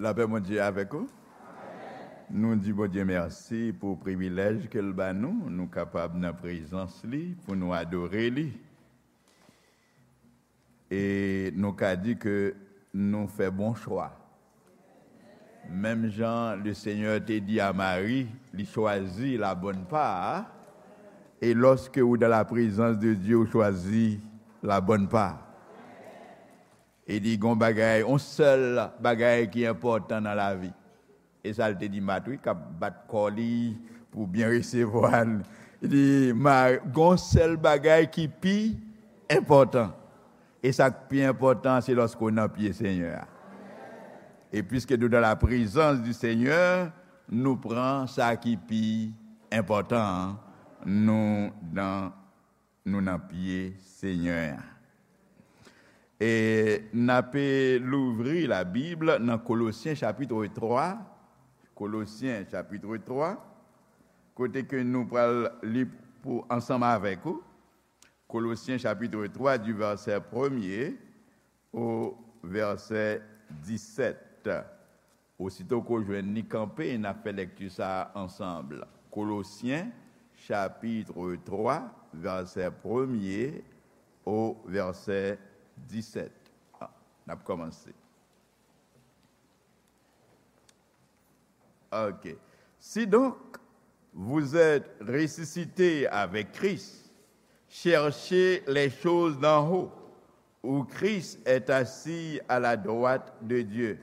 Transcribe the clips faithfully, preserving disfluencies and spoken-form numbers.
Lapè Bondye avèk ou. Nou di Bondye mèsi pou privilèj ke l ba nou, nou kapab nan prezans li pou nou adore li. E nou ka di ke nou fè bon chwa. Menm jan le Senyè te di a Mari, li chwazi la bonne part, e lòske ou dans la présence de Dieu, ou chwazi la bonne part. E li gon bagay, yon sèl bagay ki enpòtan nan lavi. E sa l te di Mat, wi, k ap bat kò li pou byen resevwa l. Li di, "Ma, gon sèl bagay ki pi enpòtan." E sa k pi enpòtan, se lòske w nan pye Senyè a. E piske nou dans la présence du Seigneur, nou pran sa ki pi enpòtan an, nou nan nou nan pye Senyè a. E n ape louvri Labib nan Kolosyen chapit twa, Kolosyen chapit twa, kote ke nou pral li pou ansanm avèk ou. Kolosyen chapit twa, di vèsè premye o vèsè disèt. Osito ke w jwenn li kanpe, n ap fè lèkti sa a ansanm. Kolosyen, chapit twa, vèsè premye o vèsè disèt. Ah, n ap kòmanse. Ok. Si donc vous êtes ressuscité avec Christ, cherchez les choses d'en haut, où Christ est assis à la droite de Dieu.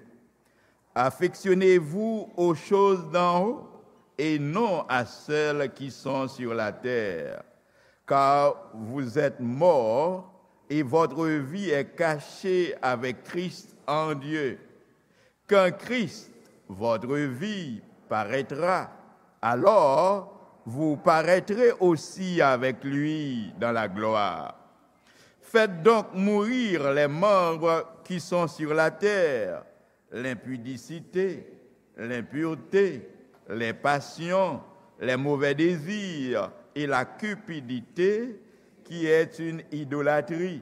Affectionnez-vous aux choses d'en haut et non à celles qui sont sur la terre, car vous êtes morts et votre vie est cachée avec Christ en Dieu. Quand Christ, votre vie, paraîtra, alors vous paraîtrez aussi avec lui dans la gloire. Faites donc mourir les membres qui sont sur la terre, l'impudicité, l'impureté, les passions, les mauvais désirs et la cupidité, qui est une idolâtrie.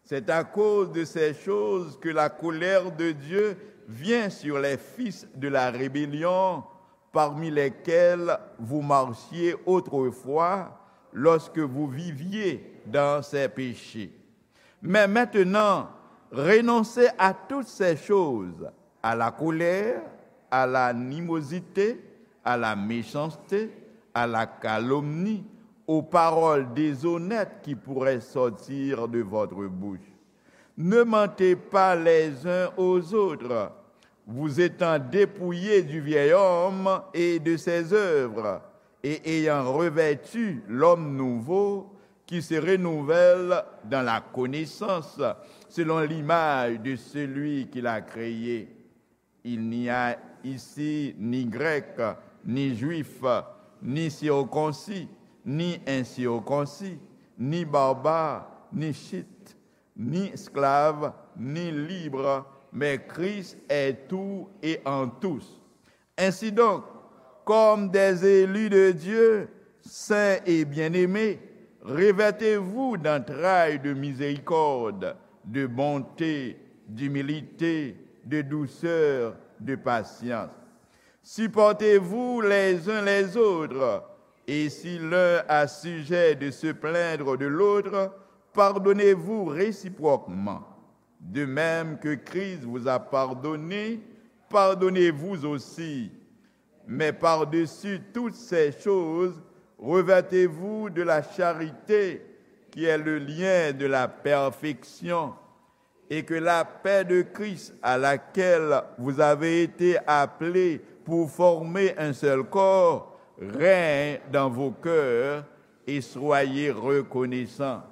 C'est à cause de ces choses que la colère de Dieu vient sur les fils de la rébellion, parmi lesquels vous marchiez autrefois lorsque vous viviez dans ces péchés. Mais maintenant, renoncez à toutes ces choses, à la colère, à l'animosité, à la méchanceté, à la calomnie, aux paroles déshonnêtes qui pourraient sortir de votre bouche. Ne mentez pas les uns aux autres, vous étant dépouillés du vieil homme et de ses œuvres, et ayant revêtu l'homme nouveau qui se renouvelle dans la connaissance selon l'image de celui qui l'a créé. Il n'y a ici ni Grec, ni Juif, ni circoncis, ni incirconcis, ni barbare, ni Scythe, ni esclave, ni libre, mais Christ est tout et en tous. Ainsi donc, comme des élus de Dieu, saints et bien-aimés, revêtez-vous d'entrailles de miséricorde, de bonté, d'humilité, de douceur, de patience. Supportez-vous les uns les autres, et si l'un a sujet de se plaindre de l'autre, pardonnez-vous réciproquement. De même que Christ vous a pardonné, pardonnez-vous aussi. Mais par-dessus toutes ces choses, revêtez-vous de la charité, qui est le lien de la perfection, et que la paix de Christ, à laquelle vous avez été appelés pour former un seul corps, règne dans vos cœurs, et soyez reconnaissants.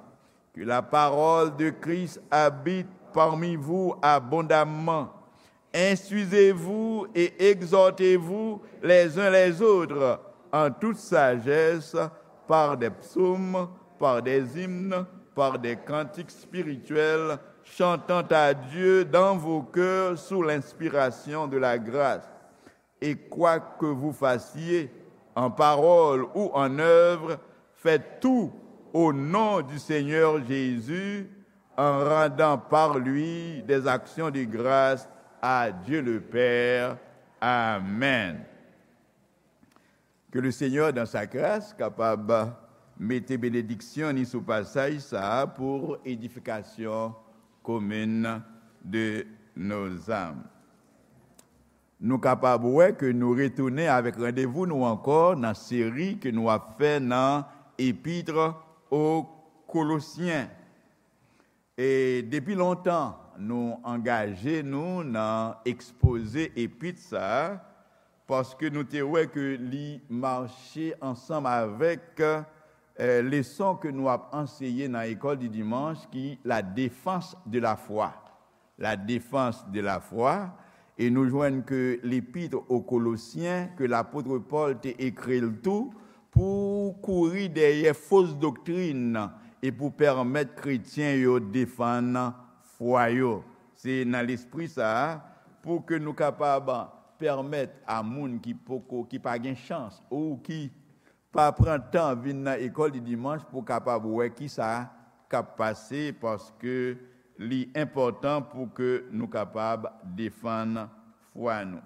Que la parole de Christ habite parmi vous abondamment. Instruisez-vous et exhortez-vous les uns les autres en toute sagesse, par des psaumes, par des hymnes, par des cantiques spirituels, chantant à Dieu dans vos cœurs sous l'inspiration de la grâce. Et quoi que vous fassiez, en parole ou en œuvre, faites tout au nom du Seigneur Jésus, en rendant par lui des actions de grâce À Dieu le Père. Amen. Que le Seigneur, dans sa grâce, kapab mete benediksyon ni sou pasaj sa a pou edifikasyon komin de nos âmes. Nou kapab wè ke nou retounen avèk randevou nou ankò nan seri ke nou ap fè nan Epître aux Colossiens. E depi lontan, nou angaje nou nan ekspoze epit sa a, paske nou te wè ke li mache ansanm avèk, eh, leson ke nou ap anseye nan École du Dimanche, ki la défense de la foi. La défense de la foi. E nou jwenn ke L'Épître aux Colossiens, ke lapot Pòl te ekri l tou, pou kouri dèyè fos doktrin e pou pèmèt kretyen yo defann fwa yo. Se nan lespri sa a, pou ke nou kapab pèmèt a moun ki poko, ki pa gen chans, ou ki pa pran tan vin nan École du Dimanche pou kapab wè ki sa k ap pase, paske li enpòtan pou ke nou kapab defann fwa nou.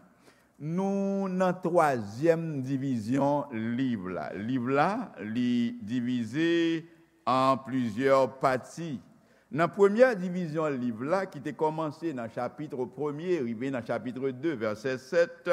Nou nan twazyèm divizyon liv la. Liv la, li divize an plizyè pati. Nan premyè divizyon liv la, ki te kòmanse nan chapit premye, rive nan chapit de, vèsè sèt,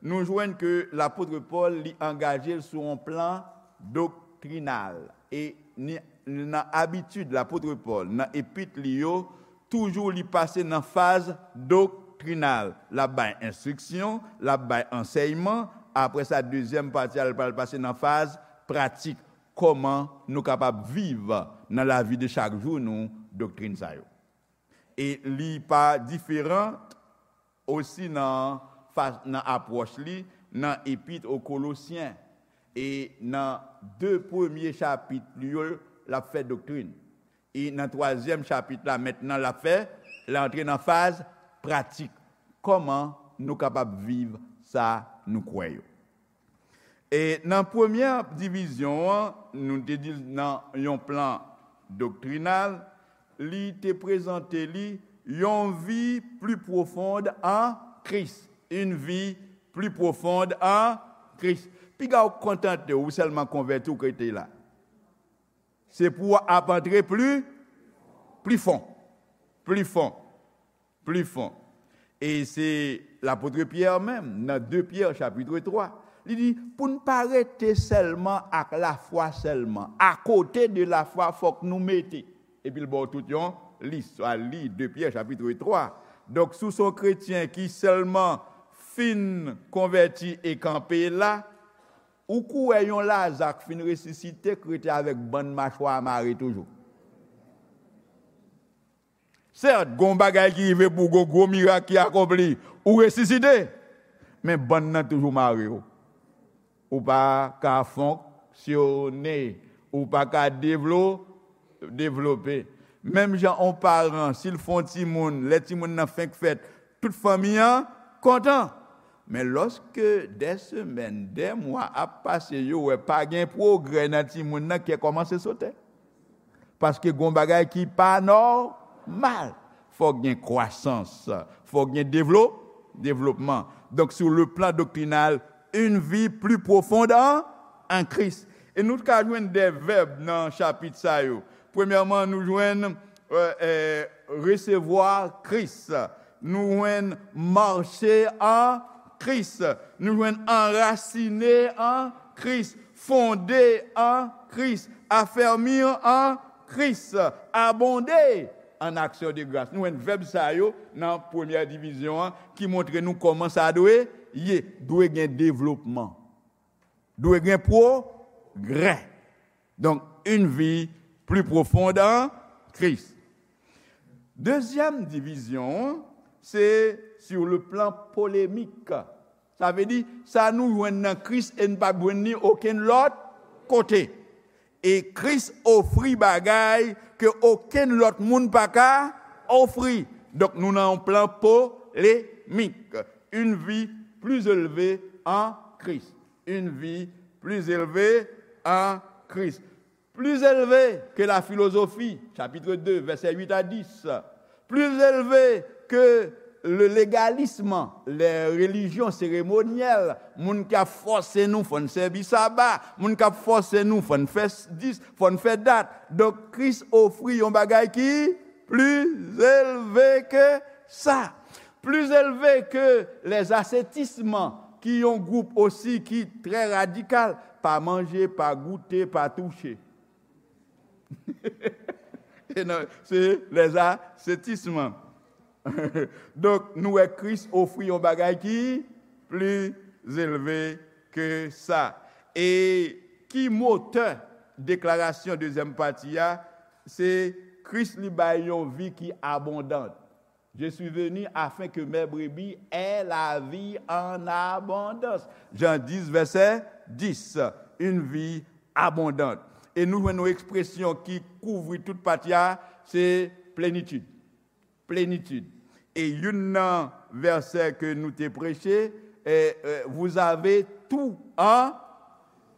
nou jwenn ke lapot Pòl, li angaje l sou yon plan doktrinal. E ni, nan abitid lapot Pòl, nan epit li yo, toujou li pase nan faz doktrinal. L ap bay enstriksyon, l ap bay ansèyman, apre sa, dezyèm pati a, l pral pase nan faz pratik. Kòman nou kapab viv nan lavi de chak jou nou doktrin sa yo? E li pa diferan osi nan fa-, nan apwòch li nan Epître aux Colossiens. E nan de premye chapit li yo, l ap fè doktrin. E nan twazyèm chapit la, mentnan, l ap fè, l antre nan faz pratik. Kòman nou kapab viv sa nou kwè yo? E nan premyè divizyon an, nou te di l nan yon plan doktrinal, li te prezante li yon vi pli pwofond an Kris. Une vie plus profonde en Christ. Piga w kontante w sèlman konvèti w ke te la. Se pou w ap antre pli, pli fon. Pli fon. Pli fon. E se lapot Pyè menm, nan de Pyè chapit twa, li di, pou n pa rete sèlman ak lafwa sèlman. Akote de lafwa, fòk nou mete. Epi l ba w tout yon lis, swa li de Pyè chapit twa. Donk, si w se yon kretyen ki sèlman fin konvèti e kanpe la, ou kwè yon Laza k fin resisite k rete avèk bann machwa a mare toujou? Sèt, gon bagay ki rive pou gwo, gwo mirak ki akonpli, ou resisite, men bann nan toujou mare w. Ou pa ka fonksyone, ou pa ka devlo-, devlope. Menm jan yon paran, si l fè yon timoun, lè timoun nan fenk fèt, tout fanmi an kontan. Men lòske dè semèn, dè mwa ap pase, yo wè pa gen pwogrè nan timoun nan, kè kòmanse sote. Paske gon bagay ki pa nòmal. Fòk gen kwasans, fòk gen devlo-, devlopman. Donk, sur le plan doctrinal, une vie plus profonde en, en Christ. E nou ka jwenn de vèb nan chapit sa yo. Premyèman, nou jwenn, euh, euh, resevwa Kris. Nou jwenn mache an Kris. Nou jwenn anrasine an Kris, fonde an Kris, afèmi an Kris, abonde an aksyon de gras. Nou jwenn vèb sa yo nan premyè divizyon an ki montre nou kòman sa dwe ye. Dwe gen devlopman. Dwe gen pwogrè. Donk, une vie plus profonde en Christ. Dezyèm divizyon an, se sur le plan polémique. Sa vle di, sa nou jwenn nan Kris e n p ap jwenn li okenn lòt kote. E Kris ofri bagay ke okenn lòt moun pa ka ofri. Donk, nou nan yon plan polemik. Une vie plus élevée en Christ. Une vie plus élevée en Christ. Plus élevée que la philosophie, chapitre deux, versets huit à dix. Plus élevée que Le légalisme, les religions cérémonielles, moun k ap fòse nou fò n sèvi saba, moun k ap fòse nou fò n fè s- dis, fò n fè dat. Donk, Kris ofri yon bagay ki pli elve ke sa. Pli elve ke les ascétismes, ki yon gwoup osi ki trè radikal, pa manje, pa goute, pa touche. E non, se les ascétismes. Donk, nou wè Kris ofri yon bagay ki pli elve ke sa. E ki motè deklarasyon dezyèm pati a? Se Kris li bay yon vi ki abondan. Je suis venu afin que mes brebis aient la vie en abondance. Jan dis, vèsè dis, une vie abondante. E nou jwenn yon ekspresyon ki kouvri tout pati a, se plenitid. Plenitid. E youn nan vèsè ke nou te preche, eh, eh, vous avez tout en,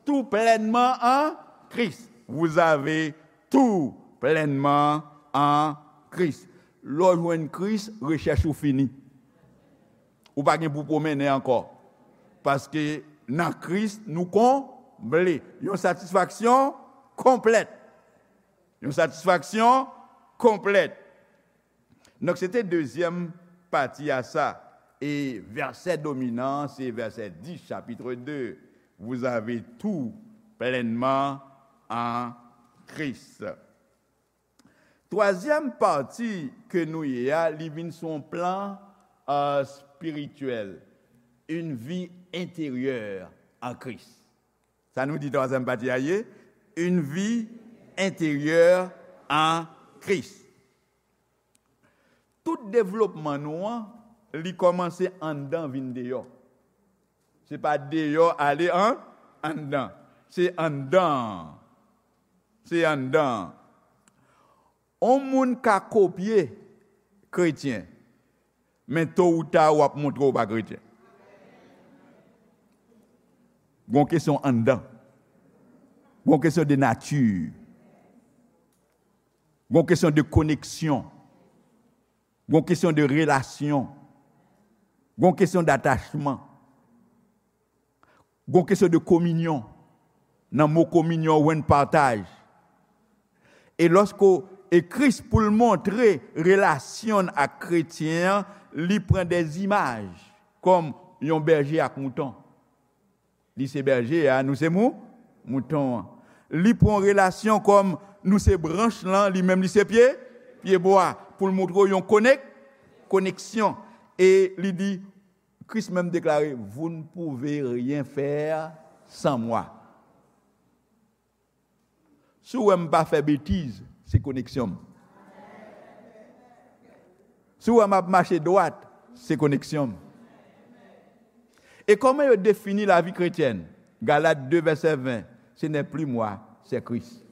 tout pleinement en Christ. Vous avez tout pleinement en Christ. Lè w jwenn Kris, rechèch ou fini. Ou pa gen pou pwomennen ankò. Paske nan Kris, nou konble. Yon satisfaksyon konplèt. Yon satisfaksyon konplèt. Donk, se te dezyèm pati a sa. E vèsè dominan, se vèsè dis, chapitre deux. Vous avez tout pleinement en Christ. Twazyèm pati ke nou ye a, li vin sou yon plan, euh, spirityèl. Une vie intérieure en Christ. Sa nou di twazyèm pati a ye? Une vie intérieure en Christ. Tout devlopman nou an, li kòmanse anndan vin deyò. Se pa deyò ale an, anndan. Se anndan. Se anndan. On moun ka kopye kretyen, men to ou ta w ap montre w pa kretyen. Gon kesyon anndan. Gon kesyon de nati. Gon kesyon de koneksyon. Gon kesyon de relasyon. Gon kesyon datachman. Gon kesyon de kominyon. Nan mo kominyon, ou jwenn pataj. E lòske w, e Kris, pou l montre relasyon l ak kretyen an, li pran de zimaj, kòm yon bèje ak mouton. Li se bèje a, nou se mou-, mouton an. Li pran relasyon kòm nou se branch lan, li menm li se pye, pyebwa, pou l montre w yon konek-, koneksyon. E li di, Kris menm deklare, vous ne pouvez rien faire sans moi. Si w wè m pa fè betiz, se koneksyon m. Si w wè m ap mache dwat, se koneksyon m. E kòman yo defini lavi kretyèn? Galat de vèsè ven, ce n'est plus moi, c'est Christ.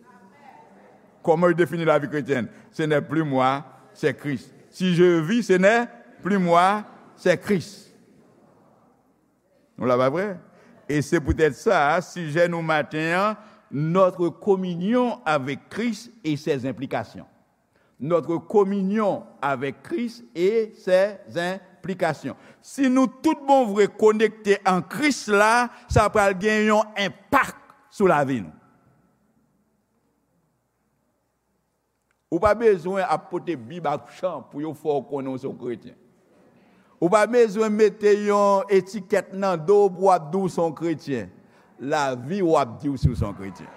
Comment il définit la vie chrétienne? Ce n'est plus moi, c'est Christ. Si je vis, ce n'est plus moi, c'est Christ. Nou la, pa vre? E se poutèt sa, sijè nou maten an, notre communion avec Christ et ses implications. Notre communion avec Christ et ses implications. Si nou tout bon vre konekte an Kris la, sa pral gen yon enpak sou lavi nou. Ou pa bezwen ap pote Bib ak chan pou yo fè w konnen w se yon kretyen. Ou pa bezwen mete yon etikèt nan do w pou w ap di w se yon kretyen. Lavi w ap di w si w se yon kretyen.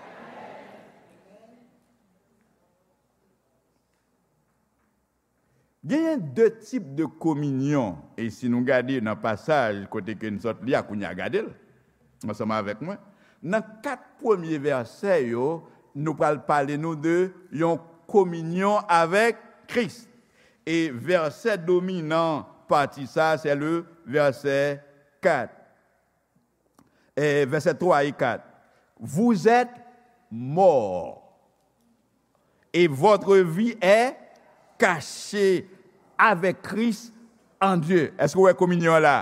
Genyen de tip de kominyon, e si nou gade nan pasaj kote ke n sot li a kounye a, gade l ansanm avèk mwen. Nan kat premye vèsè yo, nou pral pale nou de yon kominyon avèk Kris. E vèsè dominan pati sa, se le vèsè kat. Eh, vèsè twa e kat. Vous êtes morts, et votre vie est cachée avec Christ en Dieu. Èske w wè kominyon an la?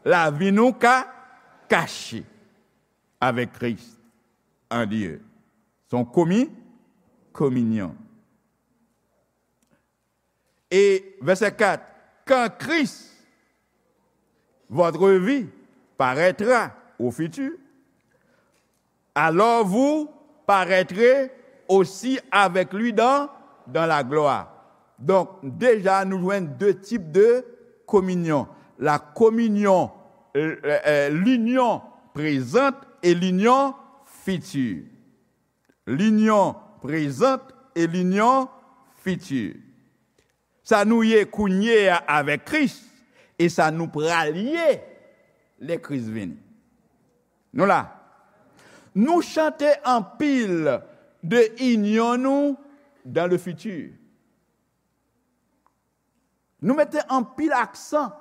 Lavi nou ka kache avec Christ en Dieu. Se yon komi-, kominyon. E vèsè kat, quand Christ, votre vie, paraîtra au futur, alors vous paraîtrez aussi avec lui dans, dans la gloire. Donk, deja, nou jwenn de tip de kominyon. La communion, euh, euh, l'union présente et l'union future. L'union présente et l'union future. Sa nou ye kounye a avèk Kris, e sa nou pral ye lè Kris vini. Nou la. Nou chante anpil de inyon nou dans le futur. Nou mete anpil aksan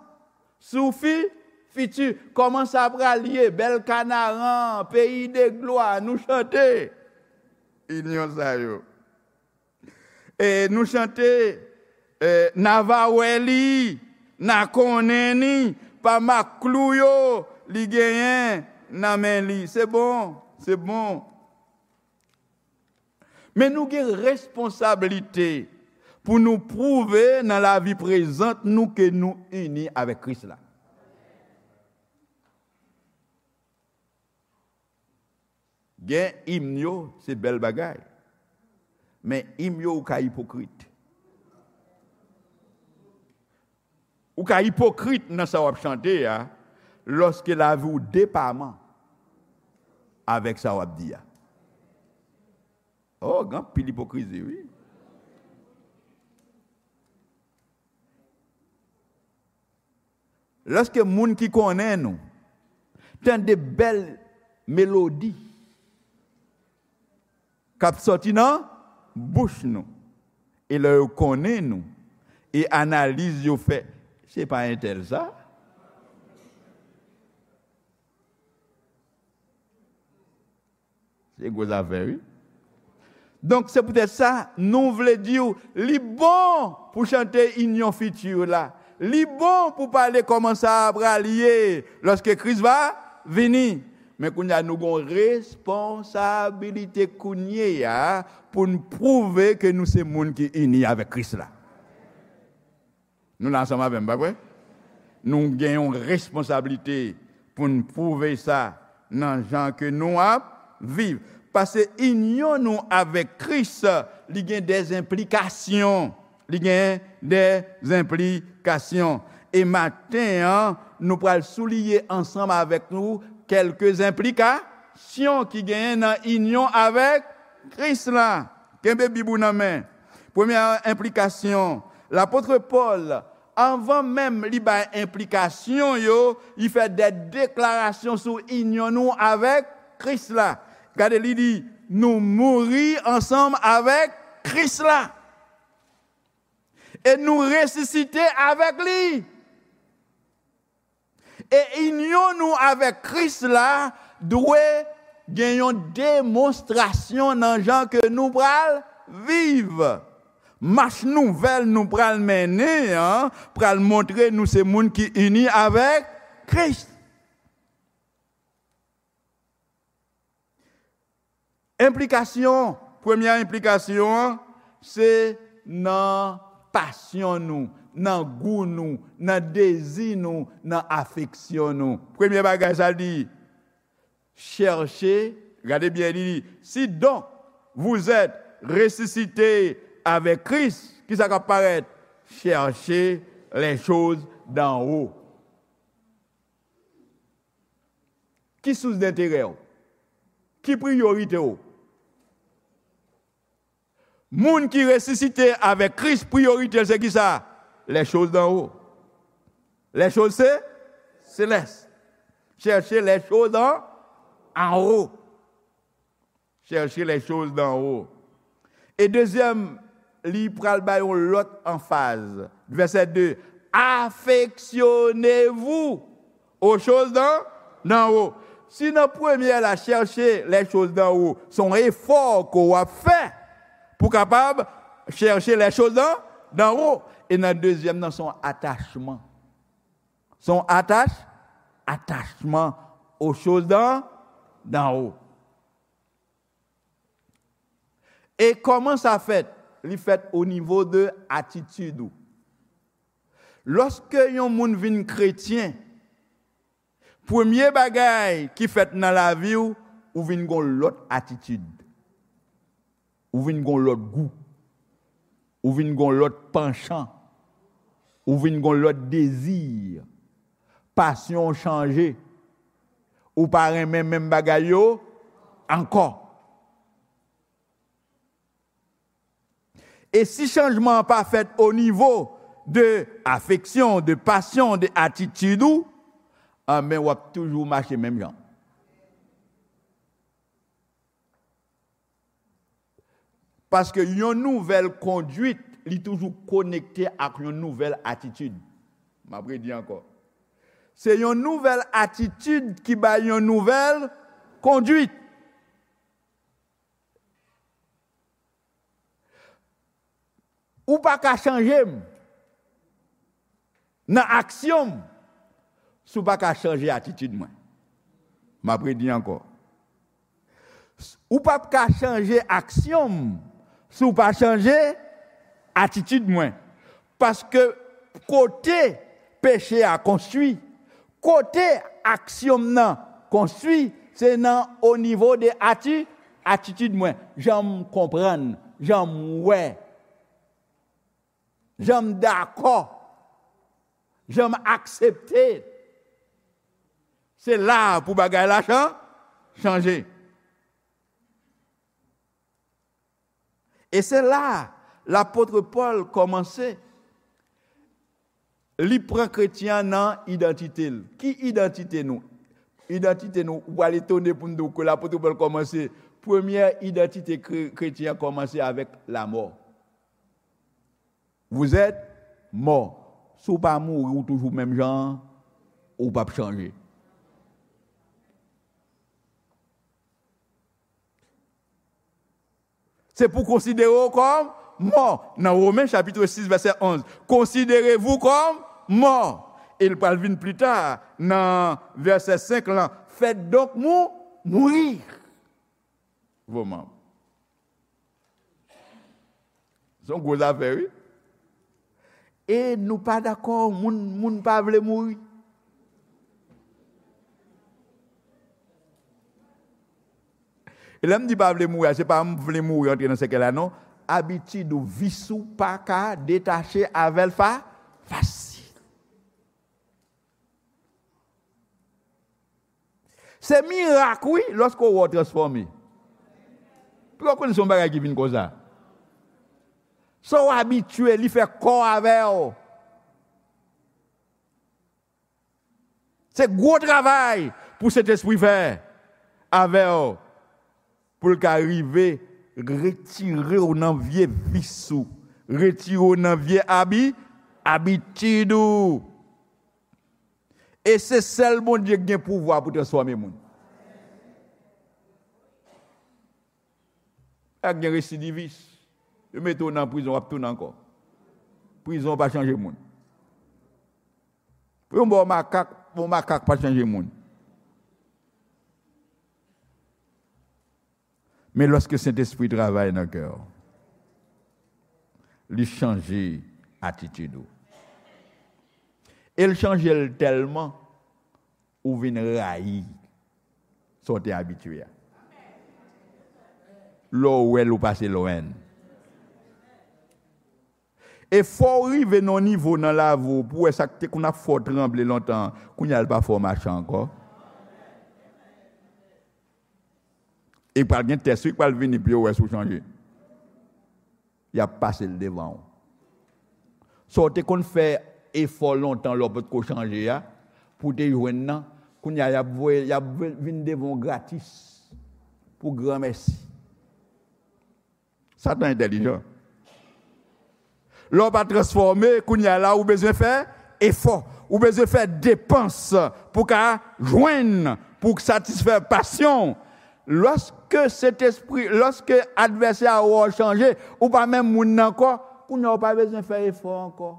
sou fi, fiti. Kòman sa pral ye? Bèl Kanaran, peyi de glwa, nou chante inyon sa yo. E nou chante, e, n a va wè li, n a konnen li, pa mak klou yo li genyen nan men li. Se bon, se bon. Men nou gen responsablite pou nou pwouve nan lavi prezant nou ke nou ini avèk Kris la. Gen im yo, se bèl bagay. Men im yo, ou ka ipokrit. Ou ka ipokrit nan sa w ap chante a, lòske lavi w depaman avèk sa w ap di a. Oh, gen anpil ipokrizi, wi. Lòske moun ki konnen nou tande bèl melodi k ap sòti nan bouch nou, e lè yo konnen nou, e analiz yo fè, se pa entèl sa? Se gwo zafè, wi. Donk, se poutèt sa, nou vle di w, li bon pou chante inyon fiti la. Li bon pou pale kòman sa pral ye lòske Kris va vini. Men kounye a, nou gen yon responsabilite kounye a pou n pwouve ke nou se moun ki ini avèk Kris la. Nou la ansanm avè m, pa vre? Nou gen yon responsablite pou n pwouve sa nan jan ke nou ap viv. Paske inyon nou avèk Kris, li gen dèzenplikasyon. Li gen dèzenplikasyon. E maten an, nou pral souliye ansanm avèk nou kèlke enplikasyon ki genyen nan inyon avèk Kris la. Kenbe Bib ou nan men. Premyè enplikasyon, lapot Pòl, anvan menm li bay enplikasyon yo, li fè de deklarasyon sou inyon nou avèk Kris la. Gade, li di, nou mouri ansanm avèk Kris la. E nou resisite avèk li. E inyon nou avèk Kris la dwe gen yon demonstrasyon nan jan ke nou pral viv. Mach nouvèl nou pral mennen an pral montre nou se moun ki ini avèk Kris. Enplikasyon, premyè enplikasyon an, se nan pasyon nou, nan gou nou, nan dezi nou, nan afeksyon nou. Premyè bagay sa l di, chèche, gade byen, li di, si donc vous êtes ressuscité avec Christ, ki sa k ap parèt? Cherchez les choses d'en haut. Ki sous denterè w? Ki priyorite w? Moun ki resisite avèk Kris, priyorite l se ki sa? Les choses d'en haut. Les choses se, célestes. Cherchez les choses en, en haut. Cherchez les choses d'en haut. E dezyèm, li pral bay yon lòt anfaz. Vèsè de, affectionnez-vous aux choses d'en, d'en haut. Si nan premyè la, cherchez les choses d'en haut, se yon efò ke w ap fè pou kapab cherchez les choses d'en, d'en haut. E nan dezyèm nan, se yon atachman. Se yon atach, atachman aux choses d'en, d'en haut. E kòman sa fèt? Li fèt o nivo de atitid ou. Lòske yon moun vin kretyen, premye bagay ki fèt nan lavi w, ou vin gon lòt atitid. Ou vin gon lòt gou. Ou vin gon lòt panchan. Ou vin gon lòt dezi. Pasyon w chanje. Ou pa renmen menm bagay yo ankò. E si chanjman an pa fèt o nivo de afeksyon, de pasyon, de atitid ou, anben w ap toujou mache menm jan. Paske yon nouvèl kondwit, li toujou konekte ak yon nouvèl atitid. M ap redi ankò. Se yon nouvèl atitid ki bay yon nouvèl kondwit. Ou pa ka chanje m nan aksyon m si w pa ka chanje atitid mwen. M ap redi ankò. Ou p ap ka chanje aksyon m si w pa chanje atitid mwen. Paske kote peche a konstwi, kote aksyon m nan konstwi, se nan o nivo de ati, atitid mwen, jan m konprann, jan m wè, jan m dakò, jan m aksepte. Se la pou bagay la chan, chanje. E se la lapot Pòl kòmanse. Li pran kretyen an nan idantite l. Ki idantite nou? Idantite nou, ou pral etone pou n di w ke lapot Pòl kòmanse. Premyè idantite kre- kretyen an kòmanse avèk lamò. Vous êtes mort. Si w pa mouri, ou toujou menm jan an, ou p ap chanje. Se pou konsidere w kòm mò. Nan Women chapit sis vèsè onz, considérez-vous comme mort. E l pral vin pli ta nan vèsè senk lan, faites donc mou, mourir vos membres. Se yon gwo zafè, wi. E nou pa dakò, moun, moun pa vle mouri. E lè m di pa vle mouri a, se pa m vle mouri antre nan sèkèy la, non. Abitid ou, vis ou pa ka detache avè l fa, fasil. Se mirak, wi, lòske w wè w transfòme. Pou w konnen se yon bagay ki vin konsa. Sa w abitye, li fè kò avè w. Se gwo travay pou Sentespri fè avè w, pou l ka rive retire w nan vye vis ou, retire w nan vye abi, abitid ou. E se sèl Bondye ki gen pouvwa pou transfòme moun. Ak gen residivis. Yo mete w nan prizon, w ap tounen ankò. Prizon pa chanje moun. Pou yon bò makak, yon makak pa chanje moun. Men lòske Sentespri travay nan kè w, li chanje atitid ou. E l chanje l tèlman, ou vin rayi sa w te abitye a. Lè w wè l, ou pase lwen. E fò w rive nan yon nivo nan lavi w pou w wè sa k te konn ap fè w tranble lontan an, kounye a l pa fè w mache ankò. E pral gen tès wi k pral vini pou yo wè si w chanje. Y ap pase l devan w. Sa w te konn fè efò lontan lè w potko chanje a, pou w te jwenn nan, kounye a y ap voye, y ap vin devan w gratis pou granmèsi. Satan entèlijan. Lè w pa transfòme, kounye a la ou bezwen fè efò. Ou bezwen fè depans pou ka jwenn, pou satisfè pasyon w. Lòske Sentespri, lòske advèsè a wè w chanje, ou pa menm moun nan ankò, kounye a ou pa bezwen fè efò ankò.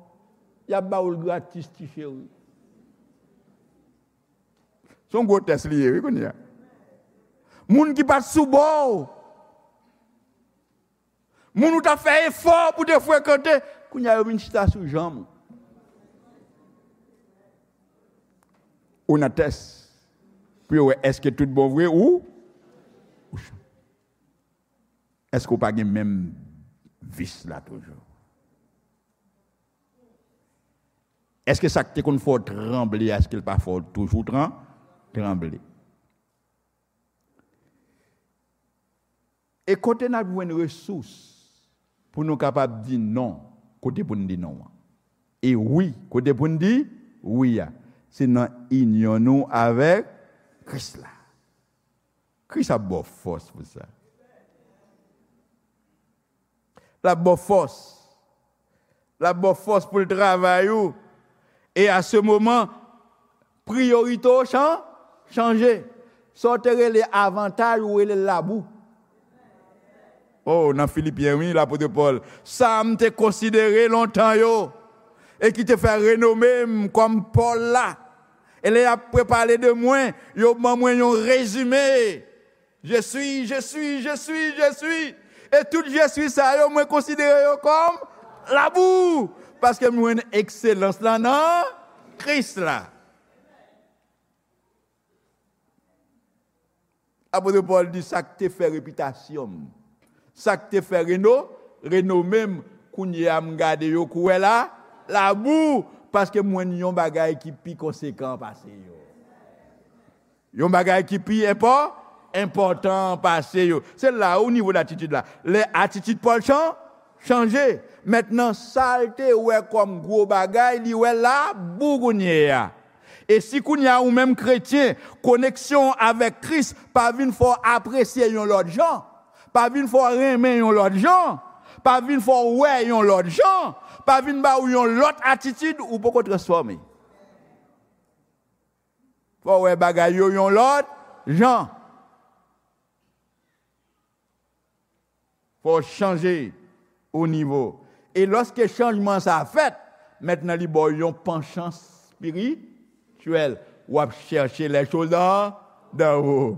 Y ap ba w l gratis, ti cheri. Se yon gwo tès li ye, wi, kounye a. Moun ki pa t sou bò w, moun ou t ap fè efò pou te frekante, kounye a yo vin chita sou janm ou. ou nan tès pou yo wè èske tout bon vre ou, ou ch-, èske w pa gen menm vis la toujou? Èske sa k te konn fè w tranble a, èske l pa fè w toujou tran-, tranble? E kote n ap jwenn resous pou nou kapab di non, kote pou n di non an? E wi, kote pou n di wi a? Se nan inyon nou avèk Kris la. Kris ap ba w fòs pou sa. L ap ba w fòs. L ap ba w fòs pou l travay ou. E a se moman, priyorite w chan-, chanje. Sa w te rele avantaj, ou rele l labou. Oh, nan Filipyen, wi, lapot Pòl. Sa m te konsidere lontan yo, e ki te fè renome m kòm Pòl la. E lè y ap prepale de mwen, yo ban mwen yon rezime. Je suis, je suis, je suis, je suis. E tout je suis sa yo, mwen konsidere yo kòm labou. Paske m jwenn ekselans lan nan Kris la. Apot Pòl di sa k te fè repitasyon m, sa k te fè reno-, renome m, kounye a m gade yo kou wè la, labou, paske m jwenn yon bagay ki pi konsekan pase yo. Yon bagay ki pi enpò-, enpòtan pase yo. Se la ou nivo datitid la. Lè atitid Pòl chan-, chanje. Mentnan, sa l te wè kòm gwo bagay, li wè labou kounye a. E si kounye a ou menm kretyen, koneksyon w avèk Kris pa vin fè w apresye yon lòt jan, pa vin fè w renmen yon lòt jan, pa vin fè w wè yon lòt jan, pa vin ba w yon lòt atitid, ou poko transfòme. Fò w wè bagay yo yon lòt jan. Fò w chanje o nivo. E lòske chanjman sa a fèt, mentnan li ba w yon panchans espirityèl. W ap chèche les choses d'en, d'en haut.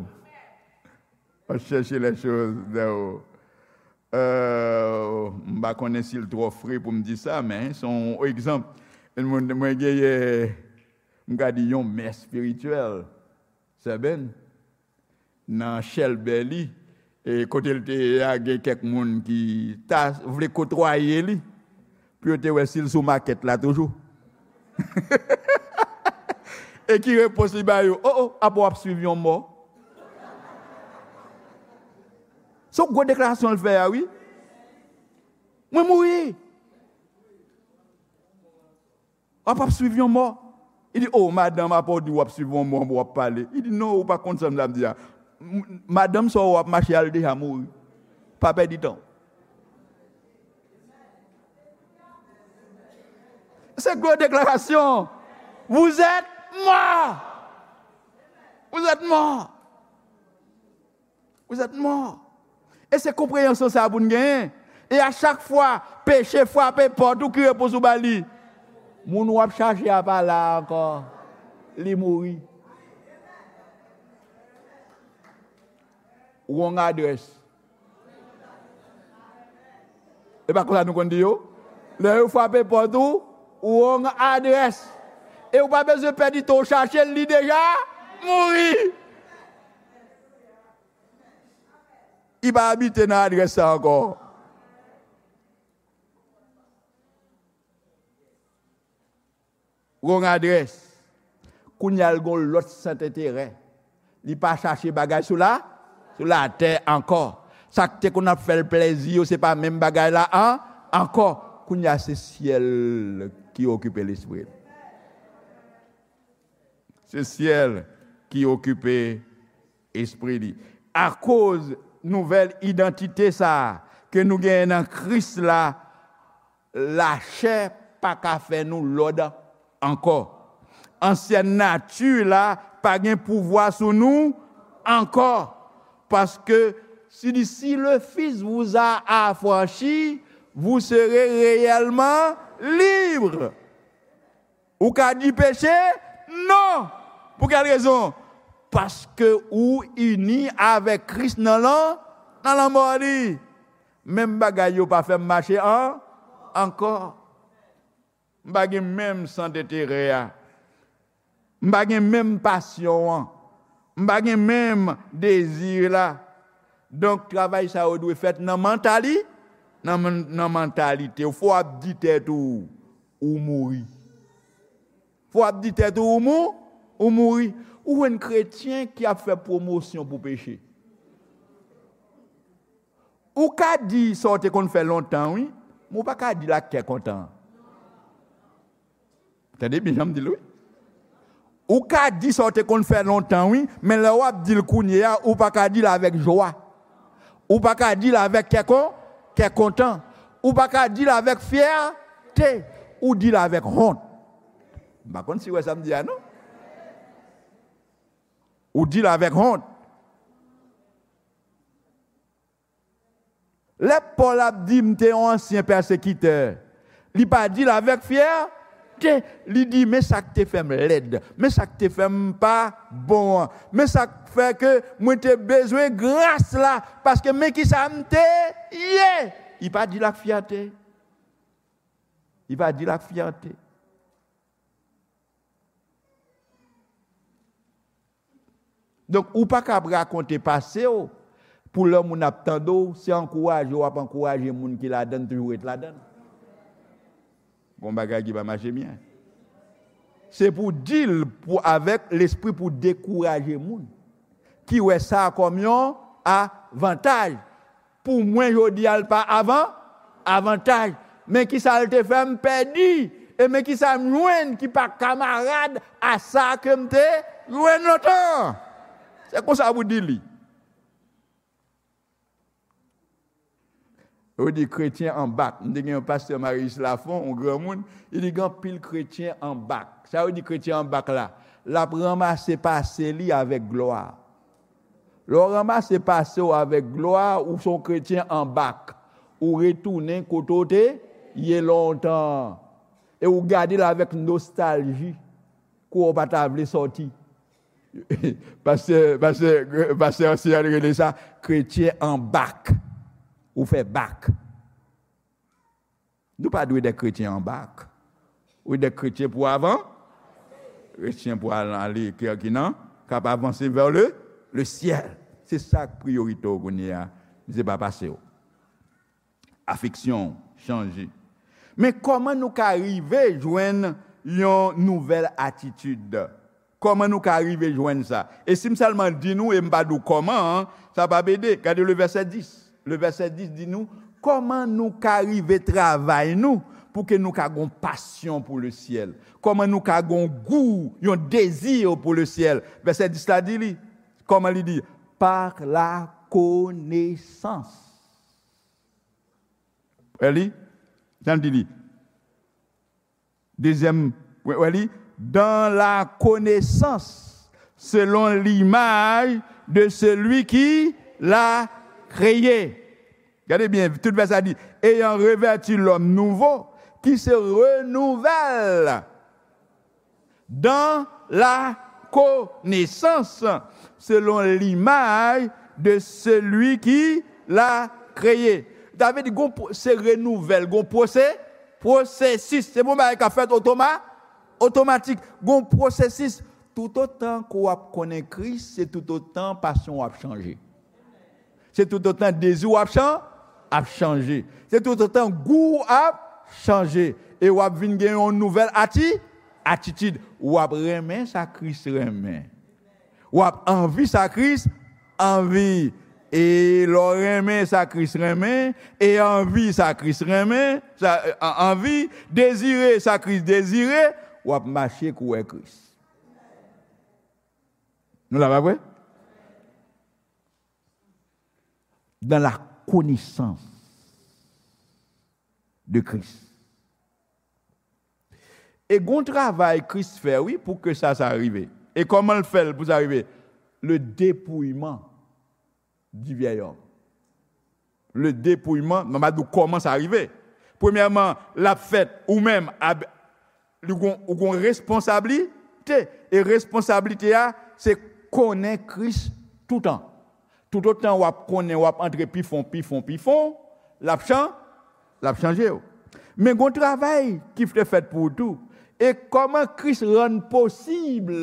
W ap chèche les choses d'en haut. Euh, m pa konnen si l twò fre pou m di sa, men se yon egzanp. Mwen, mwen genyen, m ka di yon mè espirityèl, Sè Ben, nan chèlbè li, e kote l te ye a, gen kèk moun ki ta vle kotwaye li, pou yo te wè si l sou makèt la toujou. E ki repons li ba yo? O, o, apa w ap swiv yon mò? Se yon gwo deklarasyon l fè a, wi. Mwen mouri. W ap, ap swiv yon mò. Li di, o, madanm, apa w di w ap swiv yon mò, w ap pale? Li di, non, ou pa konn sa m ap di a. M-, madanm sa w ap mache a l deja mouri. Pa pèdi tan w. Se gwo deklarasyon. Vous êtes mort. Vous êtes mort. Vous êtes mort. E se konpreyansyon sa a pou n genyen. E a chak fwa peche frape pòt ou, ki repons ou ba li? Moun w ap chache a pa la ankò. Li mouri. Wrong address. E pa konsa nou konn di yo? Lè yo frape pòt ou, wrong address. E ou pa bezwen pèdi tan w chache l, li deja mouri. Li pa abite nan adrès sa ankò. Wrong address. Kounye a l gen yon lòt sant enterè. Li pa chache bagay sou la, sou latè ankò. Sa k te konn ap fè l plezi yo, se pa menm bagay la an, ankò. Kounye a se syèl ki okipe lespri l. Se syèl ki okipe espri li. Akoz nouvèl idantite sa a ke nou genyen nan Kris la, lachè pa ka fè nou lòd ankò. Ansyèn nati la pa gen pouvwa sou nou ankò. Paske si, si le Fils vous a affranchi, vous serez réellement libre. Ou ka di peche non. Pou kèl rezon? Paske ou ini avèk Kris nan lan, nan lanmò li. Menm bagay yo pa fè m mache an, ankò. M pa gen menm sant enterè a. M pa gen menm pasyon an. M pa gen menm dezi la. Donk, travay sa yo dwe fèt nan mantali, nan, nan mantalite w. Fò w ap di tèt ou, ou mouri. Fò w ap di tèt ou, ou mou, ou mouri. Ou jwenn kretyen ki ap fè pwomosyon pou peche. Ou ka di sa w te konn fè lontan, wi, men ou pa ka di l ak kè kontan. Tande byen jan m di l, wi. Ou ka di sa w te konn fè lontan, wi, men lè w ap di l kounye a, ou pa ka di l avèk jwa. Ou pa ka di l avèk kè kon, kè kontan. Ou pa ka di l avèk fyète. Ou di l avèk wont. M pa konn si w wè sa m di a, non. Ou di l avèk wont. Lè Pòl ap di, "M te yon ansyen pèsekitè," li pa di l avèk fyète. Li di, "Men sa k te fè m lèd. Men sa k te fè m pa bon an. Men sa k fè ke mwen te bezwen gras la. Paske men ki sa m te ye." Li pa di l ak fyète. Li pa di l ak fyète. Donk, ou pa kab rakonte pase w pou lè moun ap tande w, se ankouraje w ap ankouraje moun ki ladan l toujou ret ladan l. Gon bagay ki pa mache byen. Se pou di l pou, avèk lespri pou dekouraje moun ki wè sa kòm yon avantaj. Pou mwen, jodi a, l pa avan, avantaj. Men ki sa l te fè m pèdi, e men ki sa m jwenn ki pa kamarad a sa ke m te jwenn lontan. Se konsa pou di li. Yo di kretyen an bak. M te gen yon pastè Marius Lafon, yon granmoun, li di gen anpil kretyen an bak. Sa yo di kretyen an bak la? L ap ranmase pase li avèk glwa. Lè w ranmase pase w avèk glwa, ou se yon kretyen an bak. Ou retounen kote w te ye lontan. E ou gade l avèk nostalji. Kou w pa ta vle sòti. Pastè, pastè, pastè ansyen an rele sa kretyen an bak. Ou fè bak. Nou pa dwe de kretyen an bak. Ou de kretyen pou avan, kretyen pou al, ale, ki, ki nan, k ap avanse vè le, le syèl. Se sa k priyorite w kounye a. Se pa pase w. Afeksyon w chanje. Men kòman nou ka rive jwenn yon nouvèl atitid? Kòman nou ka rive jwenn sa? E si m sèlman di nou e m pa di w kòman an, sa p ap ede. Gade le vèsè dis. Le vèsè dis di nou kòman nou ka rive travay nou pou ke nou ka gon pasyon pou le syèl. Kòman nou ka gon gou, yon dezi pou le syèl. Vèsè dis la di li, kòman li di? Par la konesans. Wè li? Jan l di li. Dezyèm, wè, wè li, dans la connaissance selon l'image de celui qui l'a créé. Gade byen, tout vèsè a di, ayant revêtu l'homme nouveau qui se renouvelle dans la connaissance selon l'image de celui qui l'a créé. Sa vle di, gon pwo-, se renouvèl, gon pwose-, pwosesis. Se pa yon bagay k ap fèt otoma-, otomatik. Gon pwosesis. Toutotan ke w ap konnen Kris, se toutotan pasyon w ap chanje. Se toutotan dezi w ap chan-, ap chanje. Se toutotan gou w ap chanje. E w ap vin gen yon nouvèl ati-, atitid. W ap renmen sa Kris renmen. W ap anvi sa Kris anvi. E lè w renmen sa Kris renmen, e anvi sa Kris renmen, sa, an-, anvi, dezire sa Kris dezire, w ap mache kouwè Kris. Nou la, pa vre? Dans la connaissance de Christ. E gon travay Kris fè, wi, pou ke sa, sa rive. E kòman l fè l pou sa rive? Le dépouillement du vieil homme. Le dépouillement, mwen va di w kòman sa rive. Premyèman, l ap fèt ou menm, ab-, li gon, ou gon responsablite. E responsablite a, se konnen Kris toutan. Toutotan w ap konnen, w ap antre pi fon, pi fon, pi fon, l ap chan-, l ap chanje w. Men gon travay ki te fèt pou ou tou. E kòman Kris rann posib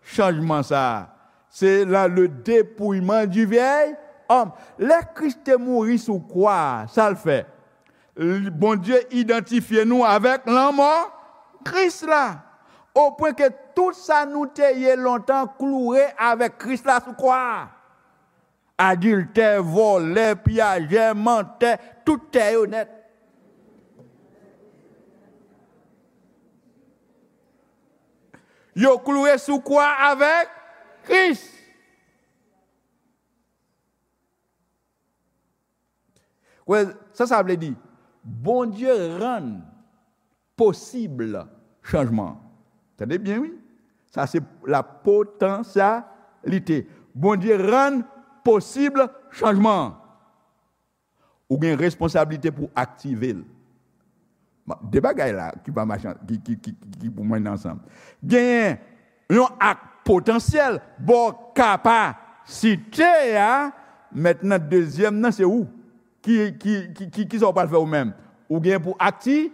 chanjman sa a? Se nan le dépouillement du vieil homme. Lè Kris te mouri sou kwa a, sa l fè? L- Bondye idantifye nou avèk lanmò Kris la. Opwen ke tout sa nou te ye lontan kloure avèk Kris la sou kwa a. Adiltè, vòlè, piyajè, mantè, tout tè yo nèt. Yo kloure sou kwa avèk Kris. Wè, sa sa vle di? Bondye rann posib chanjman. Tande byen, wi. Sa se la potansyalite. Bondye rann posib chanjman. Ou gen responsablite pou aktive l. Bon, de bagay la ki pa mache, ki, ki, ki, ki pou mwen ansanm. Genyen yon ak potansyèl, bò kapasite a, mentnan dezyèm nan se ou. Ki, ki, ki, ki, ki sa w pral fè ou menm? Ou gen pou akti,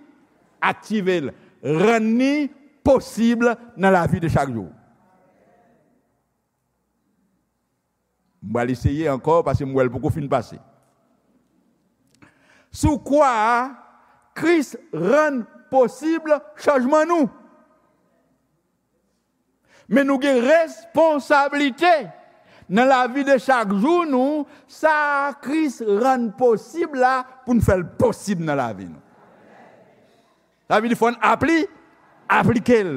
aktive l, rann li posib nan lavi de chak jou. M pral eseye ankò paske m wè l poko fin pase. Sou kwa a, Kris rann posib chanjman nou. Men nou gen responsablite nan lavi de chak jou nou, sa Kris rann posib la, pou n fè l posib nan lavi nou. Sa vle di fò n apli, aplike l.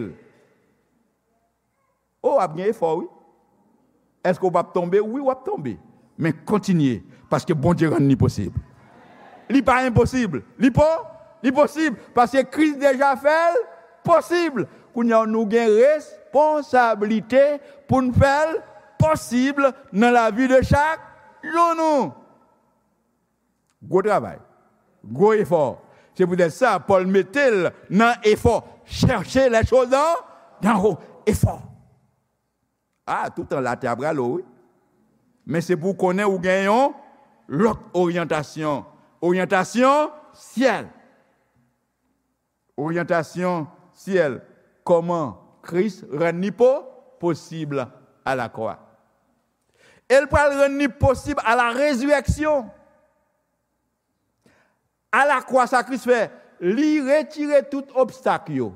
O, w ap gen efò, wi. Èske w p ap tonbe? Wi, w ap tonbe. Men kontinye, paske Bondye rann li posib. Li pa enposib. Li po, li posib, paske Kris deja fè l posib. Kounye a, nou gen responsablite pou n fè l posib nan lavi de chak jou nou. Gwo travay. Gwo efò. Se poutèt sa, Pòl mete l nan efò. Cherchez les choses d'en d'en haut. Efò. A, toutan latè ap rale w, wi. Men se pou w konnen ou gen yon lòt oryantasyon. Oryantasyon syèl. Oryantasyon syèl. Kòman Kris rann li po, posib alakwa. E l pral rann li posib a la rezirèksyon. Alakwa, sa Kris fè, li retire tout obstak yo.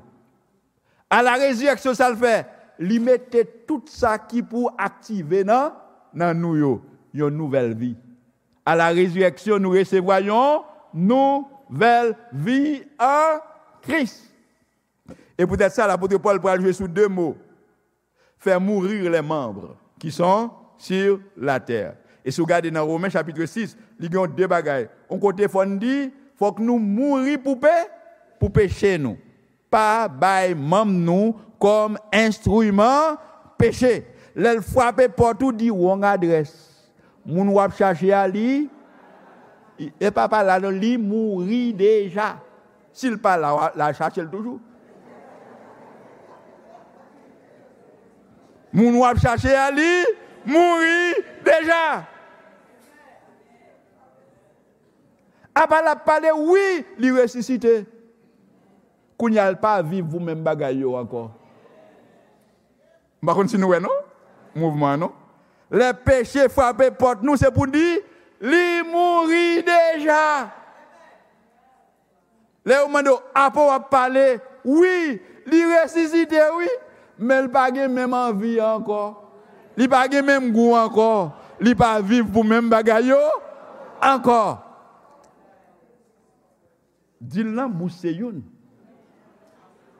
A la rezirèksyon, sa l fè, li mete tout sa ki pou aktive nan, nan nou yo, yon nouvèl vi. A la rezirèksyon, nou resevwa yon nouvèl vi an Kris. E poutèt sa, lapot Pòl pral jwe sou de mo. Faire mourir les membres qui sont sur la terre. E si w gade nan Women chapit sis, li gen yon de bagay. Yon kote fò n di, fòk nou mouri pou pe, pou peche nou. Pa bay manm nou kòm enstriman peche. Lè l frape pòt ou, di wrong address. Moun w ap chache a, li, e pa pa la non, li mouri deja. Si l pa la, w a, l a chache l toujou. Moun w ap chache a, li mouri deja. Apa l ap pale, wi, li resisite. Kounye a, l pa viv pou menm bagay yo ankò. M pa konn si nou wè non, mouvman an non. Lè peche frape pòt nou, se pou di, li mouri deja. Lè yo mande w, apa w ap pale, wi, li resisite, wi, men l pa gen menm anvi an ankò. Li pa gen menm gou ankò. Li pa viv pou menm bagay yo ankò. Di l nan bouch se youn.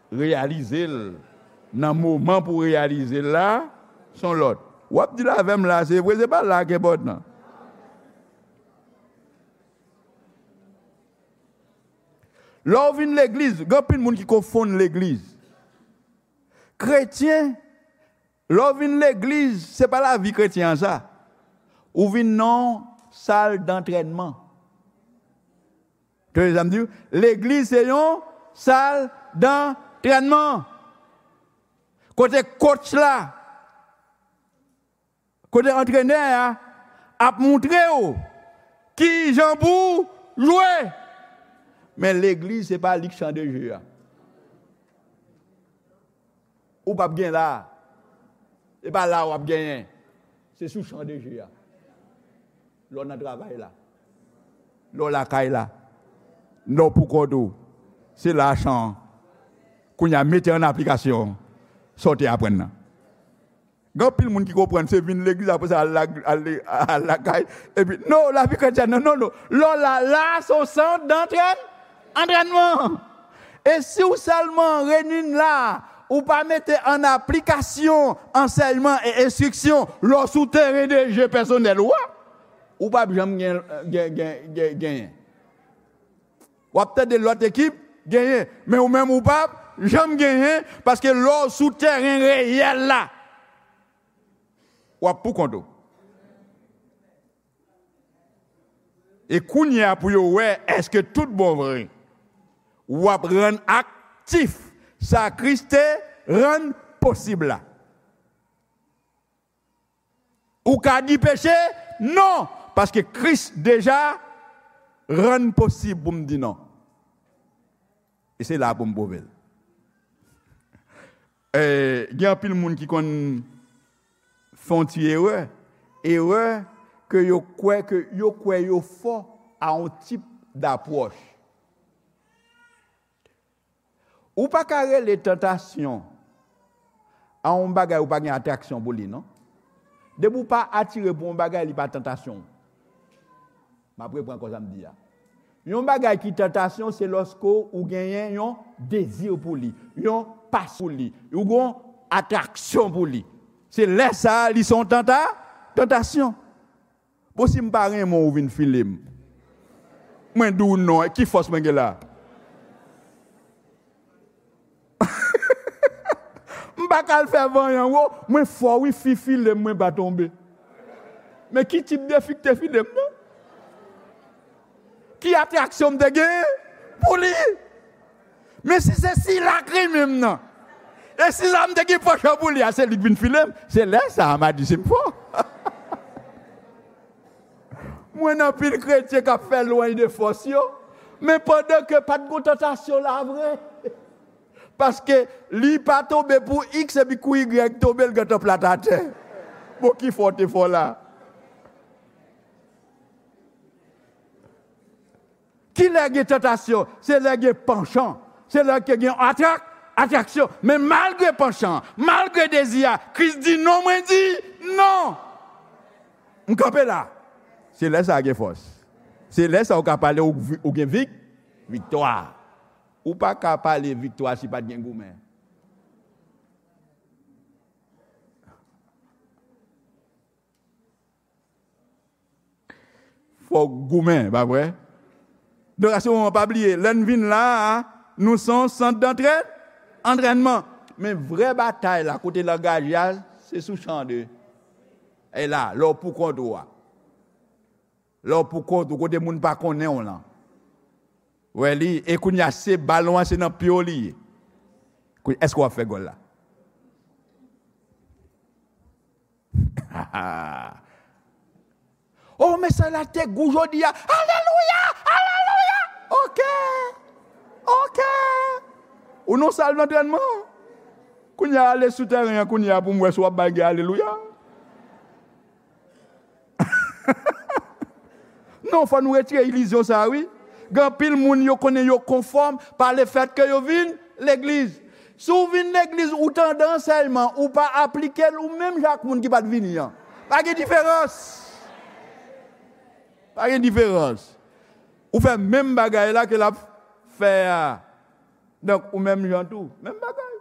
Reyalize l nan moman pou reyalize l la, s on lòt. W ap di l avè m la, se vre, se pa la k enpòtan. Lè w vin legliz, gen anpil moun ki konfonn legliz. Kretyen, lè w vin legliz, se pa lavi kretyen an sa. Ou vin nan yon sal dantrènman. Tande sa m di w? Legliz se yon sal dantrènman. Kote coach la, kote antrenè a ap moutre w kijan pou w jwe. Men legliz se pa li k chan de je a. Ou p ap gen la. E pa la w ap genyen. Se sou chan de je a. Lè w nan travay la. Lè w lakay la. Lè w pou kont ou. Se la chan an. Kounye a mete an aplikasyon sa w te aprann nan. Gen anpil moun ki konprann se vin legliz, apre sa al la, al, al lakay, epi non, lavi kretyèn nan, non, non. Lè w la, la se yon sant dantrèn, antrènman. E si w sèlman reyini la, ou pa mete an aplikasyon ansèyman e enstriksyon lè w sou teren de je pèsonèl ou a, ou p ap janm gen, gen, gen, gen, genyen. W ap tande lòt ekip genyen, men ou menm ou p ap janm genyen, paske lè w sou teren reyèl la, w ap pou kont ou. E kounye a pou yo wè èske tout bon vre w ap rann aktif sa Kris te rann posib la. Ou ka di peche non, paske Kris deja rann posib pou m di non. E se la pou m pwouve l. Eh, gen anpil moun ki konn fè yon ti erè. Erè ke yo kwè ke yo kwè yo fò a yon tip dapwòch. Ou pa ka rele tantasyon a yon bagay ou pa gen atraksyon pou li, non. Depi ou pa atire pou yon bagay, li pa tantasyon. M ap reprann ankò sa m di a. Yon bagay ki tantasyon, se lòske ou genyen yon dezi pou li, yon pasyon pou li, ou gen yon atraksyon pou li. Se lè sa a, li se yon tanta-, tantasyon. Bon, si m pa renmen w, ou vin file m. Mwen di w non, ki fòs mwen gen la? M pa ka al fè vanyan, wo, mwen fò wi, fi file m, mwen pa tonbe. Men ki tip de fi ki te file m, non? Ki atraksyon m te gen pou li? Men si se sila k renmen m nan, e sila m te gen pansman pou li a, se li k vin file m, se lè sa a m a di si m fò. Mwen nan pil kretyen k ap fè lwanj de fòs yo, men pandan ke pa t gon tantasyon la vre. Paske li pa tonbe pou X epi kou Y tonbe, l gentan plat atè. Bon, ki fò te fò la? Ki lè gen tantasyon? Se lè gen pansman. Se lè ke gen atrak-, atraksyon. Men malgre pansman, malgre dezi a, Kris di non, mwen di non. M kanpe la. Se lè sa a gen fòs. Se lè sa a ou ka pale ou, vi-, ou gen vik-, viktwa. Ou pa ka pale viktwa si pa t gen goumen. Fòk goumen, pa vre? Donk, a se moman, pa bliye, lè n vin la a, nou se yon sant dantrè-, antrènman. Men vrè batay la, kote l angaje a, se sou chan de. E la, lè w pou kont ou a. Lè w pou kont ou, kote moun pa konnen w lan. Wè li, e kounye a, se balon an, se nan pye w li ye. Kou-, èske w ap fè gòl la? Oh, mesaj la te gou jodi a. Alelouya! Alelouya! Ok! Ok! Ou nan sal dantrènman. Kounye a, ale sou tèren an, kounye a, pou m wè si w ap bay gen alelouya. Non, fò nou retire ilizyon sa a, wi. Gen anpil moun yo konnen yo konfòm pa lefèt ke yo vin legliz. Si w vin legliz, ou tande ansèyman, ou pa aplike l, ou menm jan ak moun ki pa t vini an. Pa gen diferans. Pa gen diferans. Ou fè menm bagay la ke l ap fè a. Donk, ou menm jan tou. Menm bagay.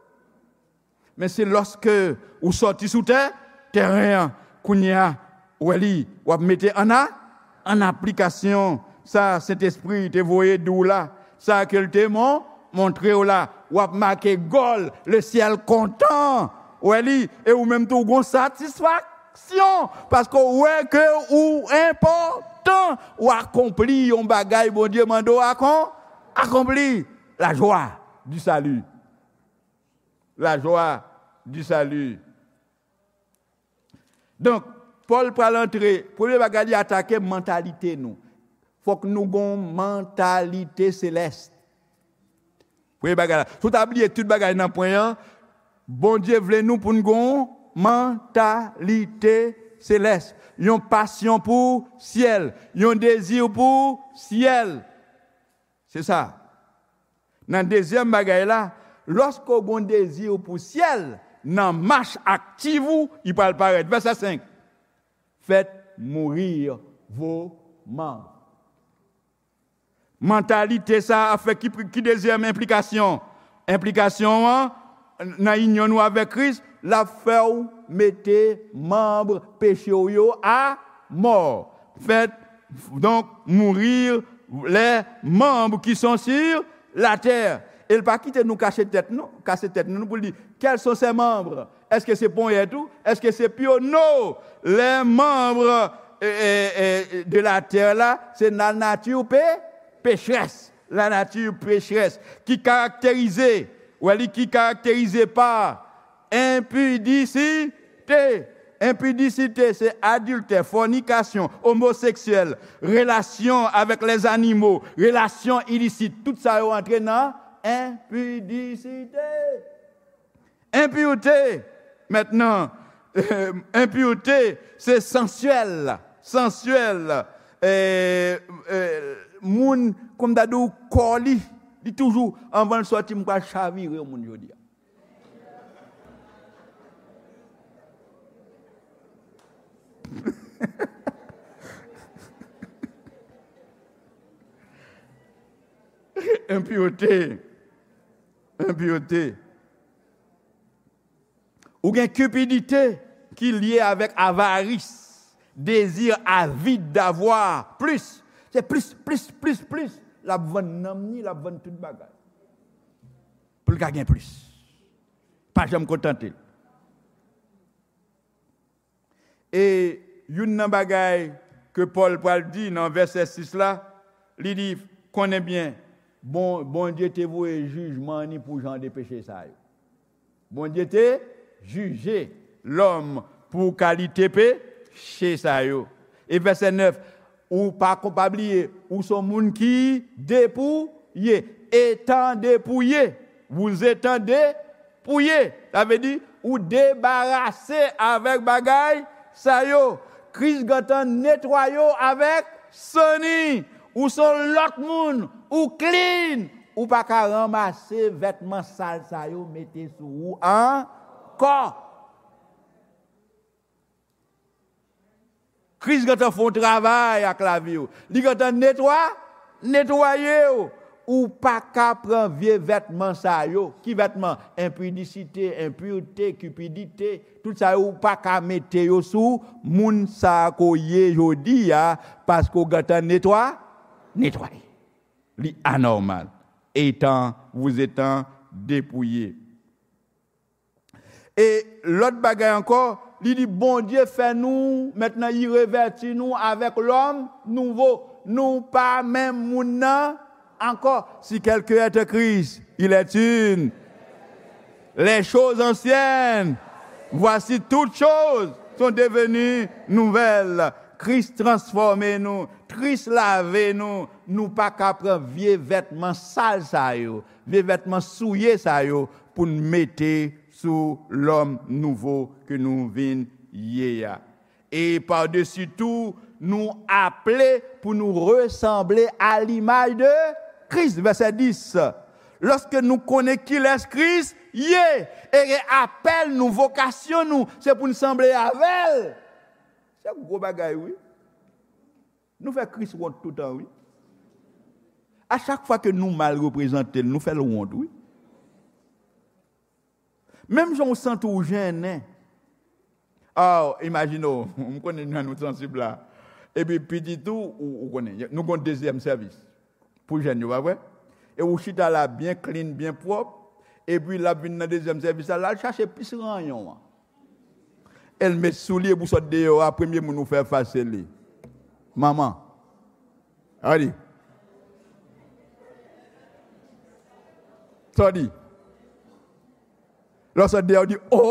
Men se lòske ou sòti sou tè, tèren an, kounye a, ou wè li, w ap mete an a, an aplikasyon sa Sentespri te voye di w la, sa ke l te mon-, montre w la, w ap make gòl, le syèl kontan, ou wè li, e ou menm tou w gon satisfaksyon, paske w wè ke ou enpòtan, w akonpli yon bagay Bondye mande w akon-, akonpli. La joie du salut. La joie du salut. Donk, Pòl pral antre, premye bagay li atake mantalite nou. Fòk nou gon mantalite selès. Premye bagay la. Si w ta bliye tout bagay nan pwen an, Bondye vle nou pou n gen yon mantalite selès, yon pasyon pou syèl, yon dezi pou syèl. Se sa. Nan dezyèm bagay la, lòske w gen yon dezi pou syèl, nan mach aktiv ou, li pral parèt. Vèsè senk. Faites mourir vos membres. Mantalite sa a fè ki, ki dezyèm enplikasyon? Enplikasyon an, nan inyon nou avèk Kris, l ap fè w mete manm peche w yo a mò. Faites donc mourir les membres qui sont sur la terre. E l pa kite nou kache tèt nou, kase tèt nou pou l di, quels sont ces membres? Èske se ponyèt ou? Èske se pye w? Non! Les membres eh, eh, eh, de la terre la, se la nature pé, pécheresse. La nature pécheresse ki karakterize, ou wè li ki karakterize pa enpidisite. Enpidisite, se adiltè, fònikasyon, omoseksyèl, relasyon avèk lèzanimo, relasyon ilisit. Tout sa yo antre nan enpidisite. Enpirte, mentnan, enpirte, se sansyèl, sansyèl, eh, eh, moun, kòm m ta di w, kò li, li toujou, anvan l sòti, m pral chavire yon moun jodi a. Enpirte, enpirte. Ou gen kipidite ki lye avèk avaris, dezi avid davwa plis. Se plis, plis, plis, plis. L ap vann nanm ni, l ap vann tout bagay. Pou l ka gen plis. Pa janm kontante l. E youn nan bagay ke Pòl pral di nan vèsè sis la, li di, konnen byen, bon, Bondye te voye jijman ni pou jan de peche sa yo. Bondye te jije lòm pou kalite peche sa yo. E vèsè nèf, ou pa ko-, pa bliye, ou se yon moun ki depouye, etan depouye, vous étant dépouillé. Sa vle di, ou debarase avèk bagay sa yo. Kris gentan netwaye w avèk san ni. Ou se yon lòt moun, ou clean. Ou pa ka ranmase vètman sal sa yo mete sou ou ankò. Kris gentan fè yon travay ak lavi w. Li gentan netwa, netwaye w. Ou pa ka pran vye vètman sa yo. Ki vètman? Enpidisite, enpirte, kipidite. Tout sa yo, ou pa ka mete yo sou moun sa ke w ye jodi a, paske w gentan netwa, netwaye. Li anòmal. Etan, vous étant dépouillé. E lòt bagay ankò, li di Bondye fè nou, mentnan li revèti nou avèk lòm nouvo. Nou pa menm moun nan ankò. Si quelqu'un est en Christ, il est une. Les choses anciennes, voici toutes choses sont devenues nouvelles. Kris transfòme nou, Kris lave nou. Nou pa ka pran vye vètman sal sa yo, vye vètman souye sa yo pou n mete sou lòm nouvo ke nou vin ye a. E padesi tou, nou aple pou nou resanble a limaj de Kris. Vèsè dis. Lòske nou konnen kilès Kris ye, e apèl nou, vokasyon nou, se pou n sanble avè l. Se gwo bagay, wi. Nou fè Kris wont toutan, wi. A chak fwa ke nou mal reprezante l, nou fè l wont, wi. Menm jan w santi w jennen. Ah, imajine w, m konnen nou, nou sansib la. Epi pitit ou, ou, ou konnen, nou gon dezyèm sèvis pou jèn yo, pa vre? E ou chita la byen clean, byen pwòp, epi l ap vin nan dezyèm sèvis la, l al chache plis ranyon an. E l met sou li, epi w sot deyò a, premye moun ou fè fas se li. Manman. Sa w di? Sa w di? Lè w sot deyò, w di, "O,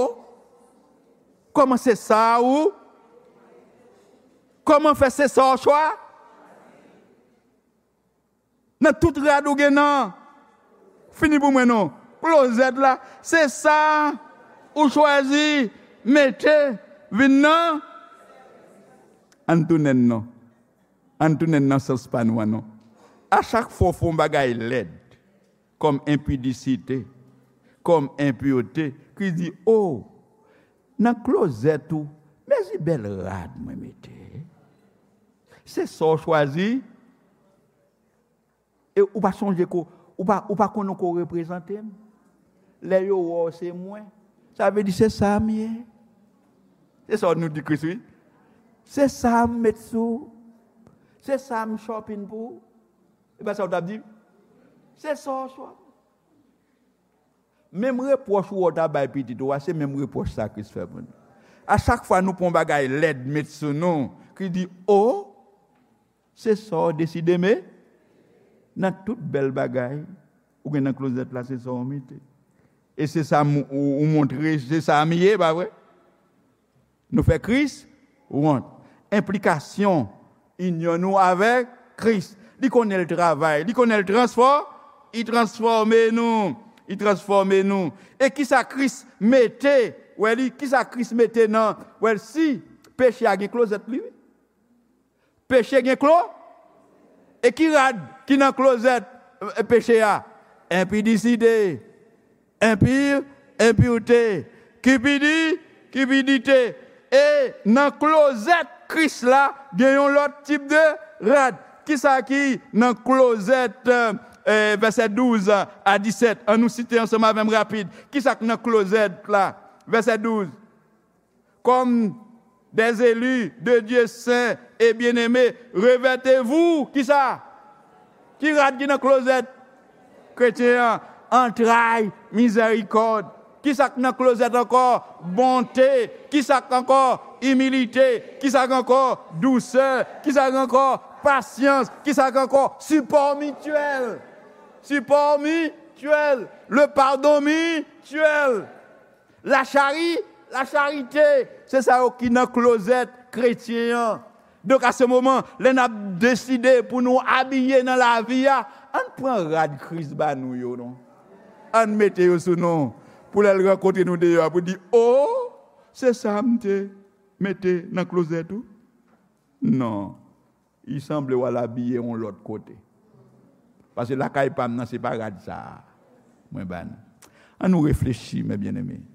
kòman se sa ou? Kòman fè se sa w chwa?" Nan tout rad ou gen nan. Fini pou mwen non. Klozèt la, se sa. Ou chwazi mete vin nan. Ann tounen non. Ann tounen nan sans pa nou an non. A chak fwa w fè yon bagay lèd, kòm enpidisite, kòm enpirte, ki di, o, nan klozèt ou, mezi bèl rad mwen mete. Se sa w chwazi. E ou pa sonje ko, ou pa, ou pa konnen ko reprezante m. Lè yo wè w se mwen, sa vle di se sa m ye. Se sa nou di Kris, wi. Se sa m met sou. Se sa m shopping pou. E pa sa w t ap di? Se sa w shopping. Menm repwòch ou wè w ta bay pitit ou a, se menm repwòch sa Kris fè pou nou. A chak fwa nou pran yon bagay lèd met sou nou, ki di, o, se sa w deside, men nan tout bèl bagay ou gen nan klozèt la, se sa w mete. E se sa m, ou, ou montre, se sa m ye, pa vre? Nou fè Kris wont. Enplikasyon inyon nou avèk Kris. Li konnen l travay, li konnen l transfò, li transfòme nou, li transfòme nou. E kisa Kris mete, wè li, kisa Kris mete nan, wè l, si peche a gen klozèt li, wi. Peche gen klo? E ki rad ki nan klozèt, e, peche a? Enpidisite, enpir, enpirte, kipidi, kipidite. E nan klozèt Kris la, gen yon lòt tip de rad. Kisa ki nan klozèt, e, vèsè douz a disèt? An nou site ansanm avè m rapid. Kisa k nan klozèt la? Vèsè douz. Comme des élus de Dieu saints et bien-aimés, revêtez-vous, kisa? Ki rad ki nan klozèt kretyen an? Antray mizèrikòd. Kisa k nan klozèt ankò? Bonte. Kisa k ankò? Imilite. Kisa k ankò? Dousè. Kisa k ankò? Pasyans. Kisa k ankò? Sipò mityèl. Sipò mityèl. Le pardon mityèl. Lachari, lacharite, se sa yo ki nan klozèt kretyen an. Donk, a se moman, lè n ap deside pou nou abiye nan lavi a, ann pran rad Kris ba nou yo, non. Ann mete yo sou nou, pou lè l rankontre nou deyò a, pou di, o, se sa m te mete nan klozèt ou? Non. Li sanble w al abiye yon lòt kote. Paske lakay pa m nan, se pa rad sa a mwen ba nou. Ann nou reflechi, mes bien-aimés.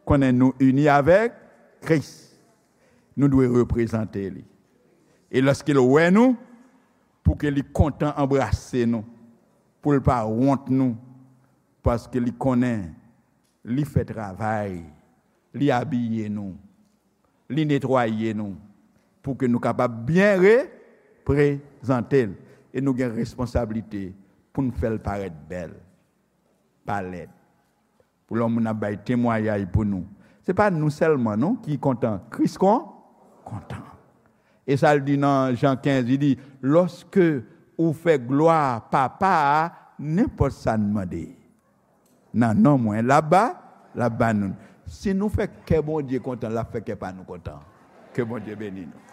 Konnen nou ini avèk Kris. Nou dwe reprezante li. E lòske l wè nou, pou ke li kontan anbrase nou, pou l pa wont nou, paske li konnen li fè travay, li abiye nou, li netwaye nou, pou ke nou kapab byen reprezante l. E nou gen responsablite pou n fè l parèt bèl, pa lèd. Pou lè yon moun ap bay temwayaj pou nou, se pa nou sèlman, non, ki kontan. Kris kon, kontan. E sa l di nan Jan kenz, li di, lòske ou fè glwa Papa a, nenpòt sa n mande nan non mwen, l ap ba, l ap ba nou. Si nou fè kè Bondye kontan, l ap fè kè pa nou kontan. Ke Bondye beni nou.